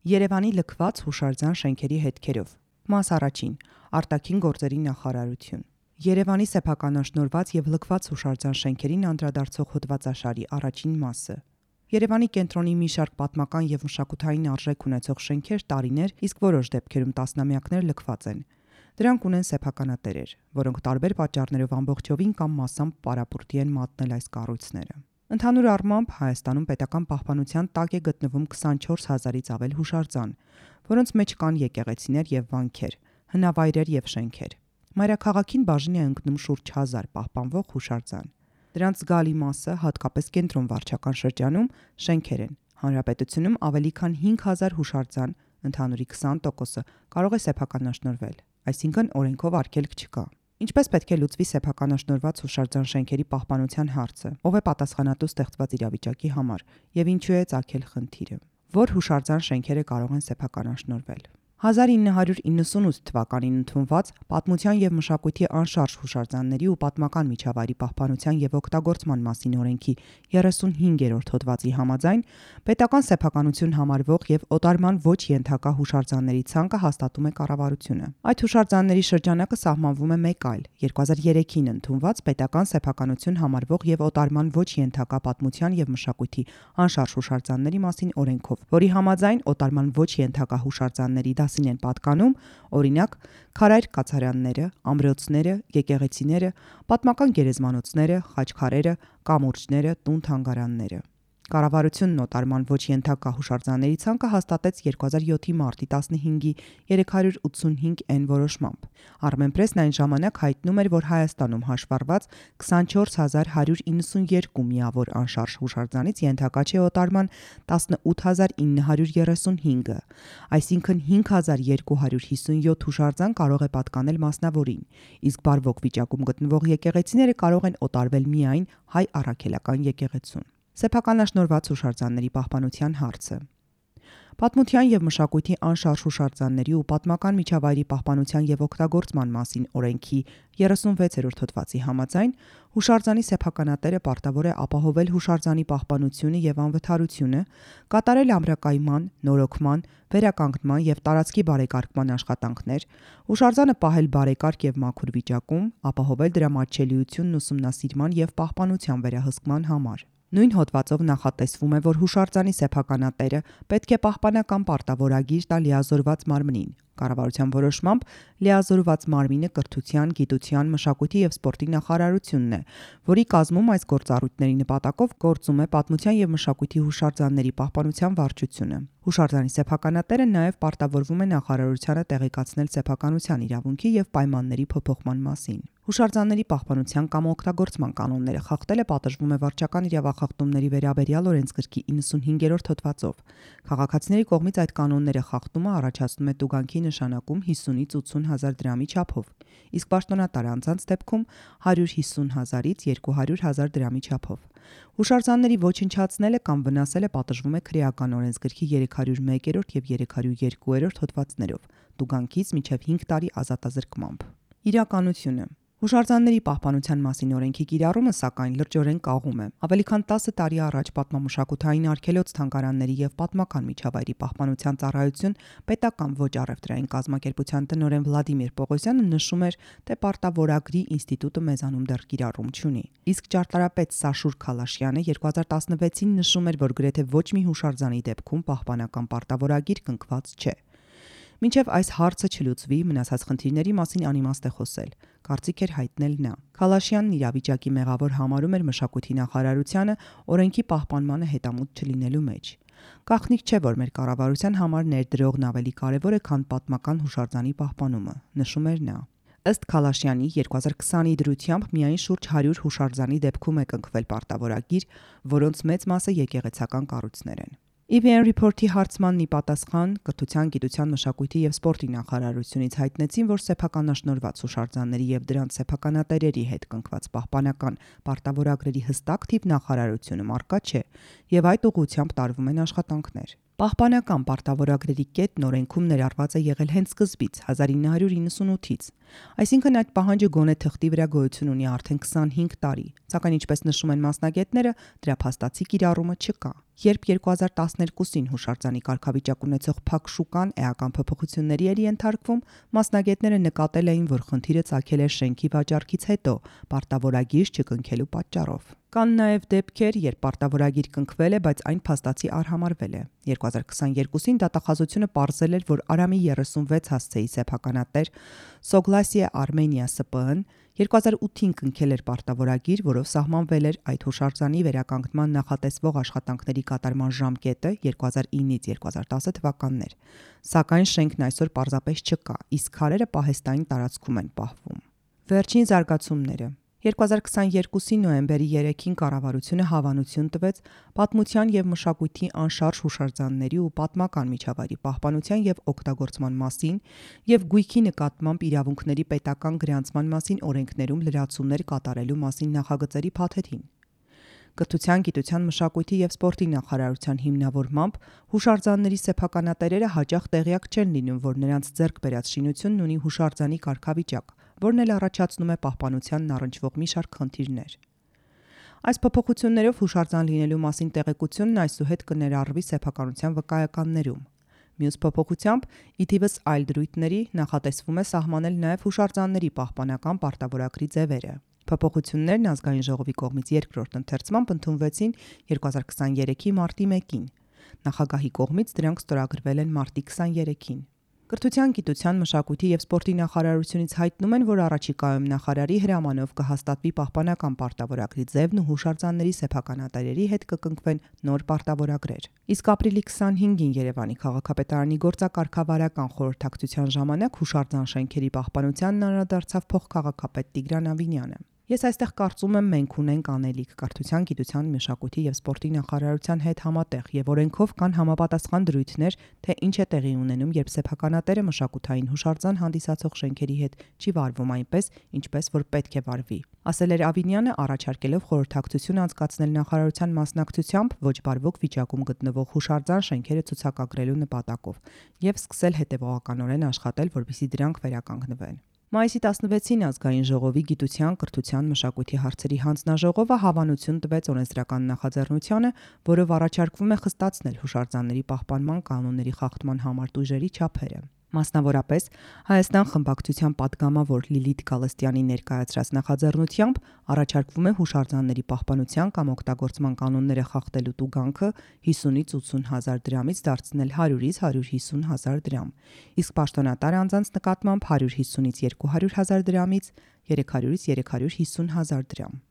Երևանի լքված հուշարձան շենքերի հետքերով։ Մաս առաջին. Արտաքին գործերի նախարարություն։ Երևանի սեփականաշնորհված եւ լքված հուշարձան շենքերին անդրադարձող հոդվածաշարի առաջին մասը։ Երևանի կենտրոնի մի շարք պատմական եւ մշակութային արժեք ունեցող շենքեր տարիներ, իսկ որոշ դեպքերում տասնամյակներ լքված են։ Դրանք ունեն սեփականատերեր, որոնք տարբեր պատճառներով ամբողջովին կամ մասամբ պարապուրտի են մատնել այս կառույցները։ Ընդհանուր առմամբ Հայաստանում պետական պահպանության տակ է գտնվում 24000-ից ավել հուշարձան, որոնց մեջ կան եկեղեցիներ եւ վանքեր, հնավայրեր եւ շենքեր։ Մայրաքաղաքին բաժին է ընկնում շուրջ 1000 պահպանվող հուշարձան։ Դրանց զգալի մասը, հատկապես կենտրոն վարչական շրջանում, շենքեր են։ Հանրապետությունում ավելի քան 5000 հուշարձան, ընդհանուրի 20%-ը կարող է սեփականաշնորհվել, այսինքն օրենքով արգելք չկա։ Ինչպես պետք է լուծվի սեփականաշնորհված հուշարձան շենքերի պահպանության հարցը, ով է պատասխանատու ստեղծված իրավիճակի համար եւ ինչու է ծագել խնդիրը։ Որ հուշարձան շենքերը կարող են սեփականաշնորհվել։ 1998 թվականին ընդունված Պատմության եւ մշակույթի անշարժ հուշարձանների ու պատմական միջավայրի պահպանության եւ օգտագործման մասին օրենքի 35-րդ հոդվածի համաձայն պետական սեփականություն համարվող եւ օտարման ոչ ենթակա հուշարձանների ցանկը հաստատում է կառավարությունը։ Այդ հուշարձանների շրջանակը սահմանվում է մեկ այլ 2003-ին ընդունված պետական սեփականություն համարվող եւ օտարման ոչ ենթակա պատմության եւ մշակույթի անշարժ հուշարձանների մասին օրենքով, որի համաձայն օտարման ոչ ենթակա հուշարձանների դասին են պատկանում, օրինակ, քարայր կացարանները, ամրոցները, եկեղեցիները, պատմական գերեզմանոցները, խաչքարերը, կամուրջները, տուն-թանգարանները։ Կառավարությունն օտարման ոչ ենթակա հուշարձանների ցանկը հաստատեց 2007-ի մարտի 15-ի 385N որոշմամբ։ Armenpress-ն այն ժամանակ հայտնում էր, որ Հայաստանում հաշվառված 24192 միավոր անշարժ հուշարձանից ենթակա չէ օտարման 18935-ը, այսինքն 5257 հուշարձան կարող է պատկանել մասնավորին, իսկ բարվոք վիճակում գտնվող եկեղեցիները կարող են օտարվել միայն հայ առաքելական եկեղեցուն։ Սեփականաշնորհված հուշարձանների պահպանության հարցը։ Պատմության եւ մշակույթի անշարժ հուշարձանների ու պատմական միջավայրի պահպանության եւ օգտագործման մասին օրենքի 36-րդ հոդվածի համաձայն հուշարձանի սեփականատերը պարտավոր է ապահովել հուշարձանի պահպանությունը եւ անվթարությունը, կատարել ամրակայման, նորոգման, վերականգնման եւ տարածքի բարեկարգման աշխատանքներ, հուշարձանը պահել բարեկարգ եւ մաքուր վիճակում, ապահովել դրա մատչելիությունն ուսումնասիրման եւ պահպանության վերահսկման համար։ Նույն հոդվածով նախատեսվում է, որ հուշարձանի սեփականատերը պետք է պահպանական պարտավորագիր տա լիազորված մարմնին։ Կառավարության որոշմամբ լիազորված մարմինը կրթության, գիտության, մշակույթի եւ սպորտի նախարարությունն է, որի կազմում այս գործառույթների նպատակով գործում է Պատմության եւ մշակույթի հուշարձանների պահպանության վարչությունը։ Հուշարձանի սեփականատերը նաեւ պարտավորվում է նախարարությանը տեղեկացնել սեփականության իրավունքի եւ պայմանների փոփոխման մասին։ Հուշարձանների պահպանության կամ օգտագործման կանոնները խախտելը պատժվում է վարչական իրավախախտումների վերաբերյալ օրենսգրքի 95-րդ հոդվածով։ Քաղաքացիների կողմից այդ կանոնները խախտումը առաջացնում է տուգանքի նշանակում 50-ից 80 հազար դրամի չափով, իսկ պաշտոնատար անձանց դեպքում 150 հազարից 200 հազար դրամի չափով։ Հուշարձանների ոչնչացնելը կամ վնասելը պատժվում է քրեական օրենսգրքի 301-րդ եւ 302-րդ հոդվածներով, տուգանքից մինչև 5 տարի ազատազրկմամբ։ Իրականությունը։ Հուշարձանների պահպանության մասին օրենքի կիրառումը, սակայն, լրջորեն կաղում է։ Ավելի քան 10 տարի առաջ պատմամշակութային արգելոց թանգարանների եւ պատմական միջավայրի պահպանության ծառայություն պետական ոչ առևտրային կազմակերպության տնօրեն Վլադիմիր Պողոսյանը նշում էր, թե պարտավորագրի ինստիտուտը մեզանում դեռ կիրառում չունի։ Իսկ ճարտարապետ Սաշուր Քալաշյանը 2016-ին նշում էր, որ գրեթե ոչ մի հուշարձանի դեպքում պահպանական պարտավորագիր կնքված չէ։ Մինչև այս հարցը չլուծվի, մնացած խնդիրների մասին անիմաստ է խոսել, կարծիք էր հայտնել նա։ Քալաշյանն իրավիճակի մեղավոր համարում էր մշակույթի նախարարությանը օրենքի պահպանմանը հետամուտ չլինելու մեջ։ Գաղտնիք չէ, որ մեր կառավարության համար ներդրողն ավելի կարևոր է, քան պատմական հուշարձանի պահպանումը, նշում էր նա։ Ըստ Քալաշյանի 2020-ի դրությամբ միայն շուրջ 100 հուշարձանի դեպքում է կնքվել պարտավորագիր, որոնց մեծ մասը եկեղեցական կառույցներ են։ EVN Report-ի հարցմանն ի պատասխան կրթության, գիտության, մշակույթի եւ սպորտի նախարարությունից հայտնեցին, որ սեփականաշնորհված հուշարձանների եւ դրանց սեփականատերերի հետ կնքված պահպանական պարտավորագրերի հստակ թիվ նախարարությունում առկա չէ եւ այդ ուղղությամբ տարվում են աշխատանքներ։ Պահպանական պարտավորագրերի կետն օրենքում ներառված է եղել հենց սկզբից 1998-ից, այսինքն այդ պահանջը գոնե թղթի վրա գոյություն ունի արդեն 25 տարի, սակայն ինչպես նշում են մասնագետները, դրա փաստացի կիրառումը չկա։ Երբ 2012-ին հուշարձանի կարգավիճակ ունեցող փակ շուկան էական փոփոխությունների էր ենթարկվում, մասնագետները նկատել էին, որ խնդիրը ծագել է շենքի վաճառքից հետո, պարտավորագիր չկնքելու պատճառով։ Կան նաև դեպքեր, երբ պարտավորագիր կնքվել է, բայց այն փաստացի արհամարվել է։ 2022-ին դատախազությունը պարզել էր, որ Արամի 36 հասցեի սեփականատեր Սոգլասիա Արմենիա ՍՊԸ-ն 2008-ին կնքել էր պարտավորագիր, որով սահմանվել էր այդ հուշարձանի վերականգնման նախատեսվող աշխատանքների կատարման ժամկետը 2009-ից 2010 թվականներ։ Սակայն շենքն այսօր պարզապես չկա, իսկ քարերը պահեստային տարածքում են պահվում։ Վերջին զարգացումները 2022-ի նոյեմբերի 3-ին կառավարությունը հավանություն տվեց պատմության եւ մշակույթի անշարժ հուշարձանների ու պատմական միջավայրի պահպանության եւ օգտագործման մասին եւ գույքի նկատմամբ իրավունքների պետական գրանցման մասին օրենքներում լրացումներ կատարելու մասին նախագծերի փաթեթին։ Կրթության, գիտության, մշակույթի եւ սպորտի նախարարության հիմնավորմամբ հուշարձանների սեփականատերերը հաճախ տեղյակ չեն լինում, որ նրանց ձեռք բերած շինությունն ունի հուշարձանի կարգավիճակ, որն էլ առաջացնում է պահպանությանն առնչվող մի շարք խնդիրներ։ Այս փոփոխություններով հուշարձան լինելու մասին տեղեկությունն այսուհետ կներառվի սեփականության վկայականներում։ Մյուս փոփոխությամբ, ի թիվս այլ դրույթների, նախատեսվում է սահմանել նաև հուշարձանների պահպանական պարտավորագրի ձևերը։ Փոփոխություններն ազգային ժողովի կողմից երկրորդ ընթերցմամբ ընդունվեցին 2023-ի մարտի 1-ին։ Նախագահի կողմից դրանք ստորագրվել են մարտի 23-ին։ Կրթության, գիտության, մշակույթի եւ սպորտի նախարարությունից հայտնում են, որ առաջիկայում նախարարի հրամանով կհաստատվի պահպանական պարտավորագրի ձևն ու հուշարձանների սեփականատերերի հետ կկնքվեն նոր պարտավորագրեր։ Իսկ ապրիլի 25-ին Երևանի քաղաքապետարանի գործակարգավարական խորհրդակցության ժամանակ հուշարձան շենքերի պահպանությանն անդրադարձավ փոխքաղաքապետ Տիգրան Ավինյանը։ Ես այստեղ կարծում եմ մենք ունենք անելիք կրթության, գիտության, մշակույթի եւ սպորտի նախարարության հետ համատեղ եւ օրենքով կան համապատասխան դրույթներ, թե ինչ է տեղի ունենում, երբ սեփականատերը մշակութային հուշարձան հանդիսացող շենքերի հետ չի վարվում այնպես, ինչպես որ պետք է վարվի, ասել էր Ավինյանը, առաջարկելով խորհրդակցություն անցկացնել նախարարության մասնակցությամբ ոչ բարվոք վիճակում գտնվող հուշարձան շենքերը ցուցակագրելու նպատակով եւ սկսել հետեւողականորեն աշխատել, որպեսզի դրանք վերականգնվեն։ Մայիսի 16-ին ազգային ժողովի գիտության, կրթության, մշակույթի հարցերի հանձնաժողովը հավանություն տվեց օրենսդրական նախաձեռնությանը, որով առաջարկվում է խստացնել հուշարձանների պահպանման կանոնների խախտման համար տույժերի չափերը։ Մասնավորապես, Հայաստան խմբակցության պատգամավոր Լիլիթ Գալստյանի ներկայացրած նախաձեռնությամբ առաջարկվում է հուշարձանների պահպանության կամ օգտագործման կանոնները խախտելու տուգանքը 50-ից 80 հազար դրամից դարձնել 100-ից 150 հազար դրամ, իսկ պաշտոնատար անձանց նկատմամբ 150-ից 200 հազար դրամից 300-ից 350 հազար դրամ։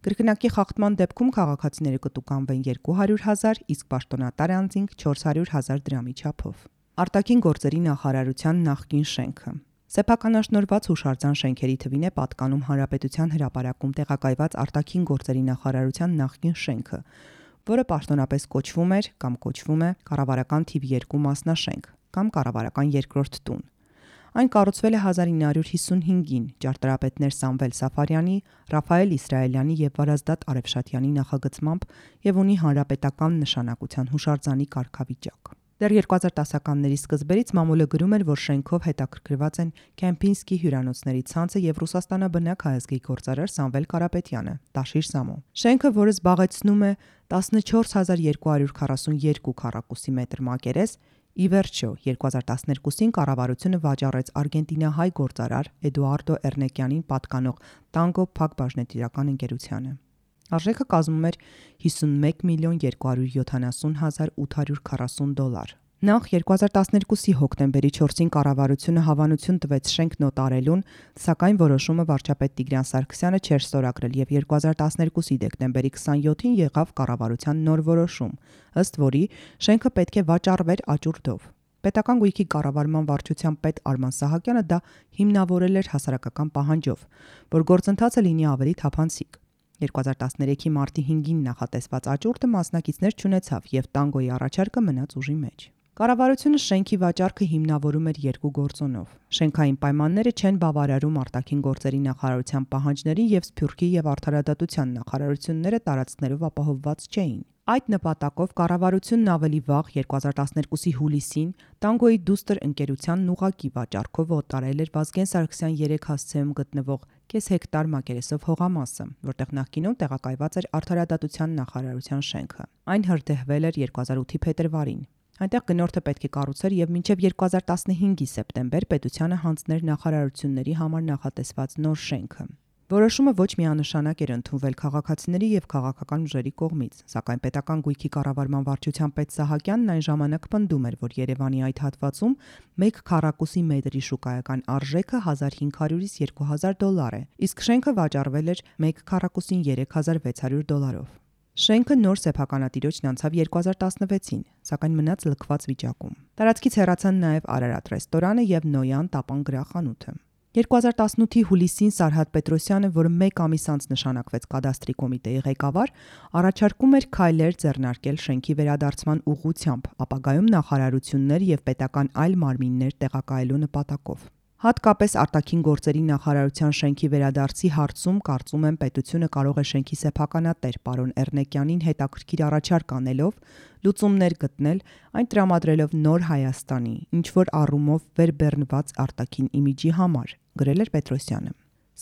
Կրկնակի խախտման դեպքում քաղաքացիները կտուգանվեն 200 հազար, իսկ պաշտոնատար անձինք 400 հազար դրամի չափով։ Արտաքին գործերի նախարարության նախկին շենքը Սեփականաշնորհված հուշարձան շենքերի թվին է պատկանում Հանրապետության հրապարակում տեղակայված արտաքին գործերի նախարարության նախկին շենքը, որը պաշտոնապես կոչվում էր կամ կոչվում է կառավարական թիվ 2 մասնաշենք կամ կառավարական երկրորդ տուն։ Այն կառուցվել է 1955-ին ճարտարապետներ Սամվել Սաֆարյանի, Ռաֆայել Իսրայելյանի եւ Վարազդատ Արեփշատյանի նախագծմամբ եւ ունի հանրապետական նշանակության հուշարձանի կարգավիճակ։ Դեռ 2010-ականների սկզբերից մամուլը գրում էր, որ շենքով հետաքրքրված են Կեմպինսկի հյուրանոցների ցանցը եւ Ռուսաստանաբնակ հայազգի գործարար Սամվել Կարապետյանը, Տաշիր Սամո։ Շենքը, որը զբաղեցնում է 14242 քառակուսի մետր մակերես, ի վերջո 2012-ին կառավարությունը վաճառեց արգենտինահայ գործարար Էդուարդո Էրնեկյանին պատկանող Տանգո փակbaşնետիրական ընկերությանը։ Արժեքը կազմում էր 51,270,840 դոլար։ Նախ 2012-ի հոկտեմբերի 4-ին կառավարությունը հավանություն տվեց շենք նոտարելուն, սակայն որոշումը վարչապետ Տիգրան Սարգսյանը չէր ստորագրել եւ 2012-ի դեկտեմբերի 27-ին եղավ կառավարության նոր որոշում, ըստ որի շենքը պետք է վաճառվեր աճուրդով։ Պետական գույքի կառավարման վարչության պետ Արման Սահակյանը դա հիմնավորել էր հասարակական պահանջով, որ գործընթացը լինի ավելի թափանցիկ։ 2013-ի մարտի 5-ին նախատեսված աճուրդը մասնակիցներ չունեցավ եւ տանգոյի առաջարկը մնաց ուժի մեջ։ Կառավարությունը շենքի վաճառքը հիմնավորում էր երկու գործոնով։ Շենքային պայմանները չեն բավարարում արտաքին գործերի նախարարության պահանջներին եւ Սփյուռքի եւ Արդարադատության նախարարությունները տարածքներով ապահովված չէին։ Այդ նպատակով կառավարությունն ավելի վաղ 2012-ի հուլիսին Տանգոյի դուստր ընկերությանն ուղղակի վաճառքով օտարել էր Վազգեն Սարգսյան 3 հասցեում գտնվող կես հեկտար մակերեսով հողամասը, որտեղ նախկինում տեղակայված էր Արդարադատության նախարարության շենքը։ Այն հրդեհվել էր 2008-ի փետրվարին։ Այնտեղ գնորդը պետք է կառուցեր եւ մինչեւ 2015-ի սեպտեմբեր պետությանը հանձներ նախարարությունների համար նախատեսված նոր շենքը։ Որոշումը ոչ միանշանակ էր ընդունվել քաղաքացիների եւ քաղաքական ուժերի կողմից, սակայն պետական գույքի կառավարման վարչության պետ Սահակյանն այն ժամանակ պնդում էր, որ Երևանի այդ հատվածում 1 քառակուսի մետրի շուկայական արժեքը $1500-ից $2000 է, իսկ շենքը վաճառվել էր 1 քառակուսին $3600-ով։ Շենքը նոր սեփականատիրոջն անցավ 2016-ին, սակայն մնաց լքված վիճակում։ Տարածքից հեռացան նաև Արարատ ռեստորանը եւ Նոյան տապան գրախանութը։ 2018-ի հուլիսին Սարհատ Պետրոսյանը, որը 1 ամիս անց նշանակվեց կադաստրի կոմիտեի ղեկավար, առաջարկում էր քայլեր ձեռնարկել շենքի վերադարձման ուղղությամբ, ապագայում նախարարություններ եւ պետական այլ մարմիններ տեղակայելու նպատակով։ Հատկապես արտաքին գործերի նախարարության շենքի վերադարձի հարցում կարծում եմ պետությունը կարող է շենքի սեփականատեր պարոն Էռնեկյանին հետաքրքիր առաջարկ անելով լուծումներ գտնել, այն տրամադրելով նոր Հայաստանի, ինչ որ առումով վերբեռնված արտաքին իմիջի համար, գրել էր Պետրոսյանը։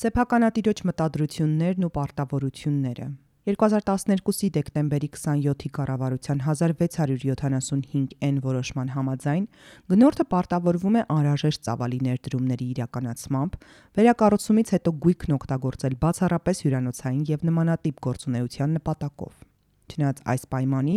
Սեփականատիրոջ մտադրություններն ու պարտավորությունները 2012-ի դեկտեմբերի 27-ի կառավարության 1675N որոշման համաձայն գնորդը պարտավորվում է անհրաժեշտ ծավալի ներդրումների իրականացմամբ վերակառուցումից հետո գույքն օգտագործել բացառապես հյուրանոցային եւ նմանատիպ գործունեության նպատակով։ Չնայած այս պայմանի,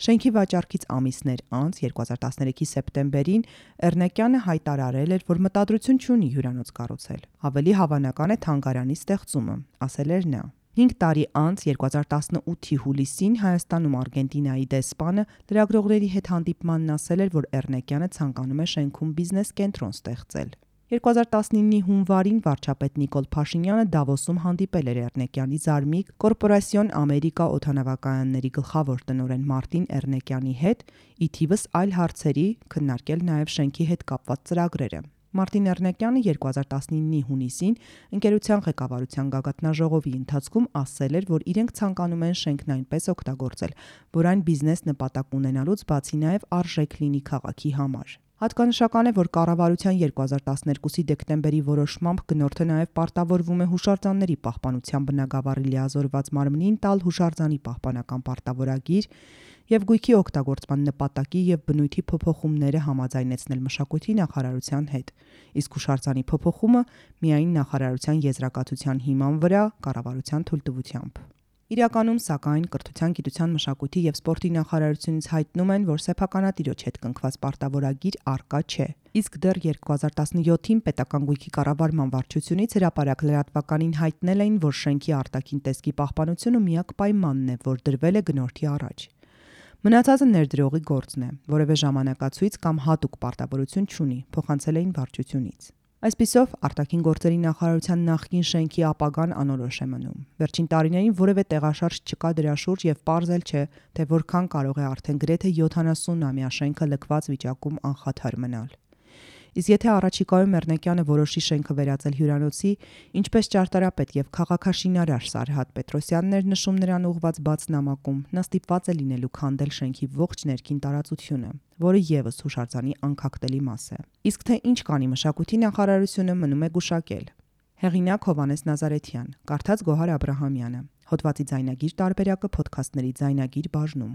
շենքի վաճառքից ամիսներ անց 2013-ի սեպտեմբերին Էռնեկյանը հայտարարել էր, որ մտադրություն չունի հյուրանոց կառուցել։ Ավելի հավանական է թանգարանի ստեղծումը, ասել էր նա։ 5 տարի անց 2018-ի հուլիսին Հայաստանում Արգենտինայի դեսպանը լրագրողների հետ հանդիպմանն ասել էր, որ Էռնեկյանը ցանկանում է շենքում բիզնես կենտրոն ստեղծել։ 2019-ի հունվարին վարչապետ Նիկոլ Փաշինյանը Դավոսում հանդիպել էր Էռնեկյանի զարմիկ Կորպորասիոն Ամերիկա օդանավակայանների գլխավոր տնօրեն Մարտին Էռնեկյանի հետ, ի թիվս այլ հարցերի, քննարկել նաև շենքի հետ կապված ծրագրերը։ Մարտին Էռնեկյանը 2019-ի հունիսին ընկերության ղեկավարության գագաթնաժողովի ընթացքում ասել էր, որ իրենք ցանկանում են շենքն այնպես օգտագործել, որ այն բիզնես նպատակ ունենալուց բացի նաև արժեք լինի քաղաքի համար։ Հատկանշական է, որ կառավարության 2012-ի դեկտեմբերի որոշմամբ գնորդը նաև պարտավորվում է հուշարձանների պահպանության բնագավառի լիազորված մարմնին տալ հուշարձանի պահպանական պարտավորագիր եւ գույքի օգտագործման նպատակի եւ բնույթի փոփոխումները համաձայնեցնել մշակույթի նախարարության հետ, իսկ հուշարձանի փոփոխումը միայն նախարարության եզրակացության հիման վրա կառավարության թույլտվությամբ։ Իրականում, սակայն, Կրթության, գիտության, մշակույթի եւ սպորտի նախարարությունից հայտնում են, որ սեփականատիրոջ հետ կնքված պարտավորագիր առկա չէ։ Իսկ դեռ 2017-ին պետական գույքի կառավարման վարչությունից հրապարակ լրատվականին հայտնել էին, որ շենքի արտաքին տեսքի պահպանությունը միակ պայմանն է, որ դրվել է գնորդի առաջ։ Մնացածը ներդրողի գործն է, որևէ ժամանակացույց կամ հատուկ պարտավորություն չունի, փոխանցել էին վարչությունից։ Այսպիսով, արտաքին գործերի նախարարության նախկին շենքի ապագան անորոշ է մնում։ Վերջին տարիներին որևէ տեղաշարժ չկա դրա շուրջ եւ պարզել չէ, թե որքան կարող է արդեն գրեթե 70-ամյա շենքը լքված վիճակում անխաթար մնալ։ Իսկ եթե առաջիկայում Էռնեկյանը որոշի շենքը վերածել հյուրանոցի, ինչպես ճարտարապետ եւ քաղաքաշինարար Սարհատ Պետրոսյանն էր նշում նրան ուղված բաց նամակում, նա ստիպված է լինելու քանդել շենքի ողջ ներքին տարածությունը, որը եւս հուշարձանի անքակտելի մաս է։ Իսկ թե ինչ կանի մշակույթի նախարարությունը մնում է գուշակել։ Հեղինակ Հովհաննես Նազարեթյան, կարդաց Գոհար Աբրահամյանը։ Հոդվացի ձայնագիր տարբերակը ոդքասթների ձայնագիր բաժնում։